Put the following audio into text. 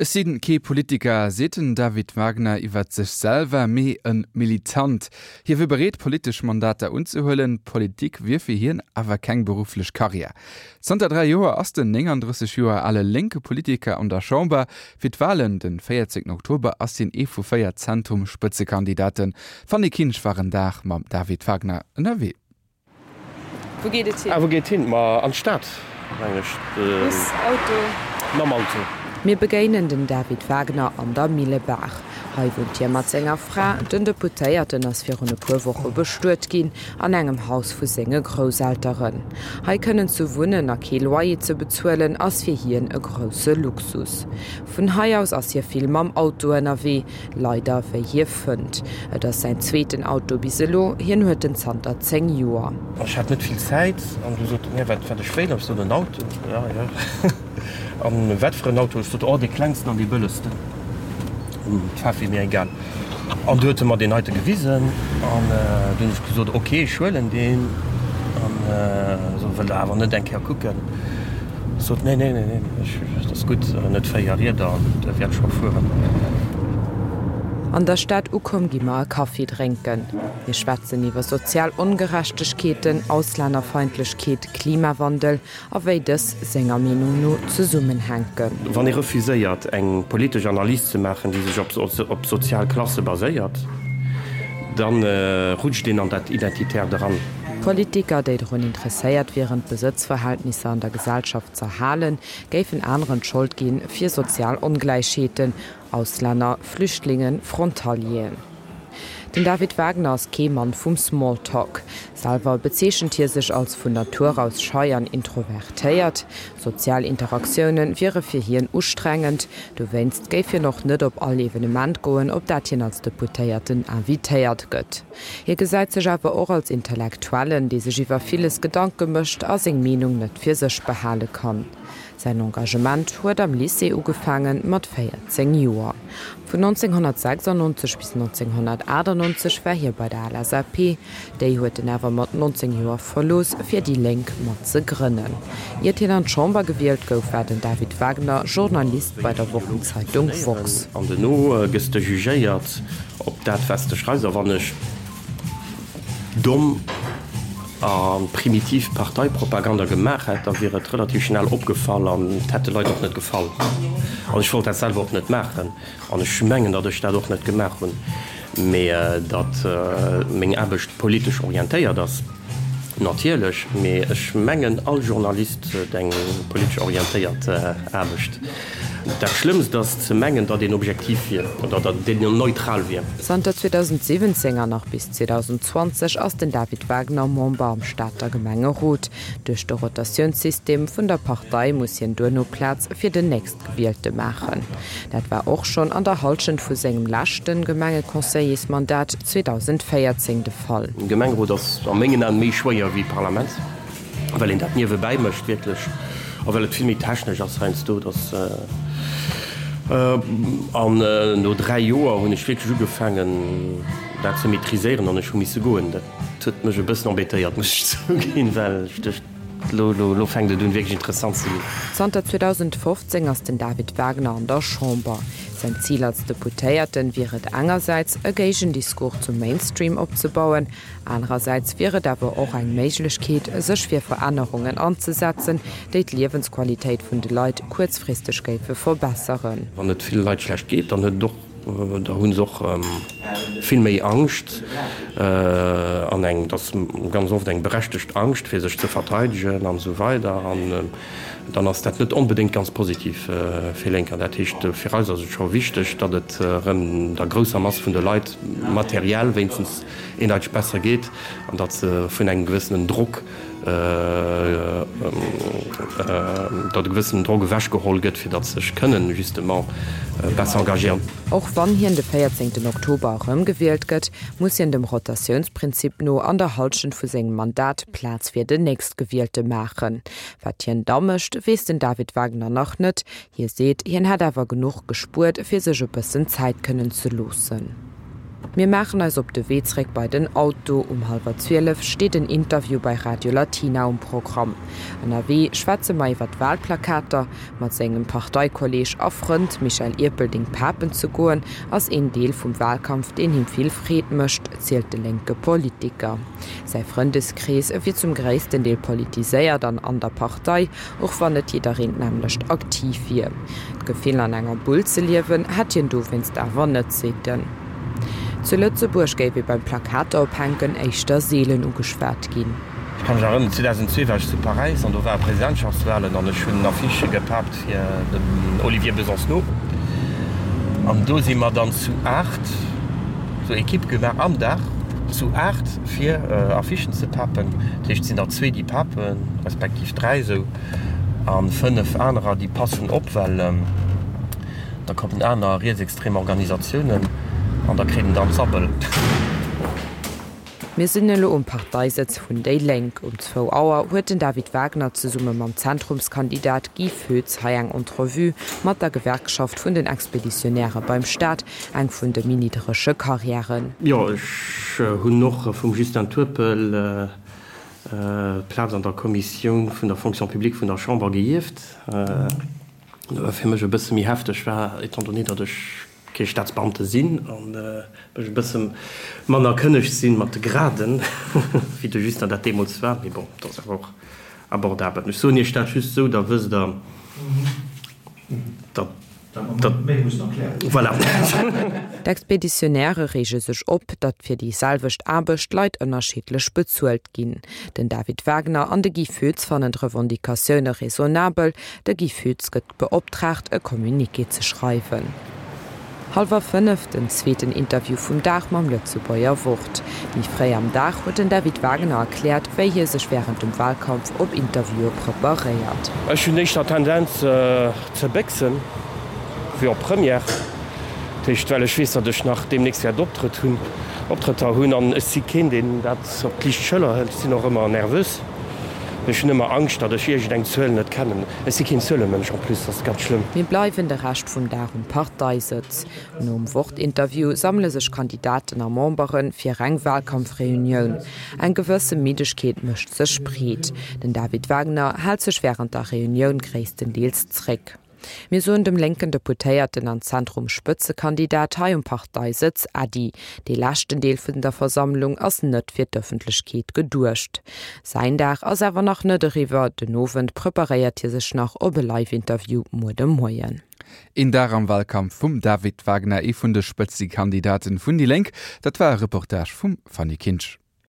Ech si kee Politiker, seet den David Wagner iwwert sech selwer, mee e Militant. Hie wier bereet, politesch Mandater unzehuelen, Politik wier fir hien awer keng berufflech Karriär. Zanter 3 Joer ass den 39 Joer ale lénke Politiker an der Chamber. Fir d'Walen de 14 Oktober ass hien ee vu 4 Zentrum-Spëtzekandidaten. D'Fanny Kinsch war en Dag mam David Wagner ënnerwee. Wou geet et hin? Ah, wou geet hin? Ma an d'Stad, mengen ech. Bus, Auto? Mam Auto. Mir begéinen den David Wagner an der Millebaach. Hei wunnt hie mat senger Fra. Den Deputéierten ass virun e puer Woche bestuet ginn an engem Haus vu senge Grousselteren. Hei kënnen ze wunnen a kee Loyer ze bezuelen, ass fir hien e grousse Luxus. Vun hei aus ass hie vill mam Auto ënnerwee. Leider, wéi hie fënnt. Et ass säin zweeten Auto bis elo, hien huet en zanter 10 Joer. Ech hat net vill Zäit an du sot en, jo, wat wat ech wéilt. Ech sot, en Auto. Jo, jo. An wat fir en Auto? Ech sot, oh, dee klengsten an dee bëllegsten. D'Faarf wier mir egal. An du huet e mer deen heite gewisen an du hunn ech gesot, ok, ech huelen deen. An esou, wëllt Der awer net eng Kéier kucken? Sot, Nee, nee, nee, nee, ech, ass gutt, net 4 Rieder an der wäert scho fueren. An der Stad ukomm gi mer e Kaffi drénken. Mir schwätzen iwwer sozial Ongerechtegkeeten, Auslännerfeindlechkeet, Klimawandel a wéi dës senger Meenung no zesummenhänken. Wann ee refuséiert eng politesch Analys ze maachen, déi sech op sozial Klasse baséiert, da rutscht een an dat Identitärt eran. Politiker, déi drun interesséiert wieren, d'Besëtzverhältnisser an der Gesellschaft z'erhalen, géifen aneren d'Schold ginn fir sozial Ongläichheeten, Auslänner, Flüchtlingen, Frontalieren. Den David Wagner ass kee Mann vum Smalltalk. Selwer bezeechent hie sech als vun Natur aus schei an introvertéiert. Sozial Interaktioune wiere fir hien ustrengend. Dowéinst géif hien och net op all Evenement goen, op dat hien als Deputéierten invitéiert gëtt. Hie gesäit sech awer och als Intellektuellen, dee sech iwwer villes Gedanke mécht a seng Meenung net fir sech behale kann. Säin Engagement huet am Lycée ugefaange mat 14 Joer. Vun 1996 bis 1998 war hie bei der LSAP. Déi huet en awer mat 19 Joer verlooss, fir déi Lénk mat ze grënnen. Iert hien an d'Chamber gewielt gouf, war den David Wagner Journalist bei der Wochenzeitung Woxx. An duerno gëss de jugéiert Op dat wat s de schreifs, a wann ech domm a primitiv Parteipropaganda gemaach hätt, da wier et relativ schnell opgefall an et hätt de Leit och net gefall. An ech wollt dat selwer och net maachen an ech mengen, datt ech dat och net gemaach hunn, mee datt meng Aarbecht politesch orientéiert ass. Natierlech, mee ech mengen all Journalist huet eng politesch orientéiert Aarbecht. Dat Schlëmmst ass ze mengen, datt een objektiv wier oder datt een neutral wier. Zanter 2017 an nach bis 2020 ass den David Wagner Member am Stater Gemengerot. Duerch de Rotatiounssystem vun der Partei muss hien duerno Plaz fir den Nächstgewielte maachen. Dat war och schonn an der Hallschent vu sengem leschte Gemengeconseillersmandat 2014 de Fall. Gemengerot ass a mengen Aen méi schwéier wéi Parlament, well een dat niewebäi mécht wierklech a well et vill méi technesch ass heiansdo. Dass an no 3 Joer hunn ech wierklech ugefaangen dat ze maîtriséieren an ech hu misse goen. Dat huet mech e bëssen embêtéiert, muss ech zouginn, well ech duecht, Lo, lo, lo fänkt et un wierklech interessant ze ginn. Zanter 2015 ass den David Wagner an der Chamber. Säin Zil als Deputéierten wier et engersäits, e Géigendiscours zum Mainstream opzebauen, anerersäits wier et awer och eng Méiglechkeet, sech fir Verännerungen anzesetzen, déi d'Liewensqualitéit vun de Leit kuerzfristeg géife verbesseren. Wann et ville Leit schlecht geet, dann huet et och Da hu se och vill méi Angscht an eng, dat ass ganz oft eng berechtegt Angscht, fir sech ze verteidegen an esou weider. An dann ass dat net onbedéngt ganz positiv fir Lénker. Dat heescht, fir eis ass et scho wichteg, datt et erëm der grousser Mass vun de Leit materiell wéinstens eendeiteg besser geet an datt se vun engem gewëssenen Drock, datt e gewëssenen Drock ewechgeholl gëtt, fir datt se sech kënnen justement besser engagéieren. Och wann hien de 14 Oktober erëmgewielt gëtt, muss hien dem Rotatiounsprinzip no an der Hallschent vu sengem Mandat Plaz fir den Nächstgewielte maachen. Wat hien da mécht, weess den David Wagner nach net. Hie seet, hien hätt awer genuch gespuert, fir sech e bëssen Zäit kënnen ze loossen. Mir maachen eis op de Wee zréck bei den Auto. Um hallwer 12 steet en Interview bei Radio Latina um Programm. Ënnerwee schwätze mer iwwer d'Walplakater. Mat sengem Parteikolleeg a Frënd Michel Ierpelding papen ze goen, ass een Deel vum Walkampf, deen him vill Freed mécht, zielt de lénke Politiker. Säi Frëndeskrees wier zum gréissten Deel politiséiert an an der Partei, och wann net jiddereen d'nämmlecht aktiv wier. D'Gefill an enger Bull ze liewen, hätt hien dowéinst awer net, seet en. Zu Lëtzebuerg géif ee beim Plakater ophänken éischter seelen ugeschwat ginn. Ech ka mech erënneren, 2002 war ech zu Paräis an do ware Presidentschaftswahlen an ech hunn Affichë gepaapt fir den Olivier Besancenot an do si mer dann zu 8 sou Equipe gemaach am Dag zu 8 fir Affichen ze papen. Dat heescht et sinn der zwee déi papen, respektiv 3 esou an 5 anerer déi passen op, well da kommen aner rietsextrem Organisatiounen an da kréien der d'Sabbel. Mir sinn elo um Parteisëtz vun déi Lénk. Um zwou Auer huet den David Wagner zesumme mam Zentrumskandidat Guy Foetz hei eng Entrevue mat der Gewerkschaft vun den Expeditionäre beim Staat, eng vun de méi nidderege Karriären. Jo, ech hunn och vum Justin Turpel d'Plaz an der Kommissioun vun der Fonction publique vun der Chamber geierft. Dat war fir mech e bësse méi hefteg war, étant donné, datt ech kee Staatsbeamte sinn an ech e bësse manner kënneg sinn mat de Graden, wéi de Justin dat deemools war. Mee bon, dat ass awer och abordabel. Ech soen Iech dat just esou, da wësst Der, datt. Voilà. D'Expeditionnairë reege sech op, datt fir déi selwecht Aarbecht Leit ënnerschiddlech bezuelt ginn. Den David Wagner an de Guy Foetz fannen d'Revendicatioune raisonnabel. De Guy Foetz gëtt beoptraagt, e Communiqué ze schreiwen. Hallwer 5, den zweeten Interview vum Dag mam Lëtzebuerger Wort. Méi fréi am Dag huet den David Wagner erkläert, wéi hie sech wärend dem Walkampf op Interviewe preparéiert. Ech hunn éischter Tendenz ze béchsen, wéi op Première. Dat heescht, well ech weess, datt ech nach deemnächst wäert Optrëtt hunn, Optrëtter hunn an ech si keen, deen dat op d'liicht Schëller hëlt. Ech sinn och ëmmer nervös. Ech hunn ëmmer Angscht, datt ech iergendeng Zuel net kennen. Ech si keen Zuelemënsch en plus, dat ass ganz schlëmm. Mir bleiwen de Rescht vum Dag um Parteisëtz. Nom Wort-Interview sammele sech Kandidaten a Membere fir eng Walkampfreunioun. Eng gewësse Middegkeet mécht sech breet. Den David Wagner hält sech wärend der Reunioun gréisstendeels zréck. Mir soen dem lénken Deputéierten an Zentrum-Spëtzekandidat hei um Parteisëtz Äddi. Dee leschten Deel vun der Versammlung ass net fir d'Ëffentlechkeet geduecht. Säin Dag ass awer nach net eriwwer, den Owend preparéiert hie sech nach op e Live-Interview muer de Moien. Een Dag am Walkampf vum David Wagner, ee vun de Spëtzekandidaten vun déi Lénk. Dat war e Reportage vum Fanny Kinsch.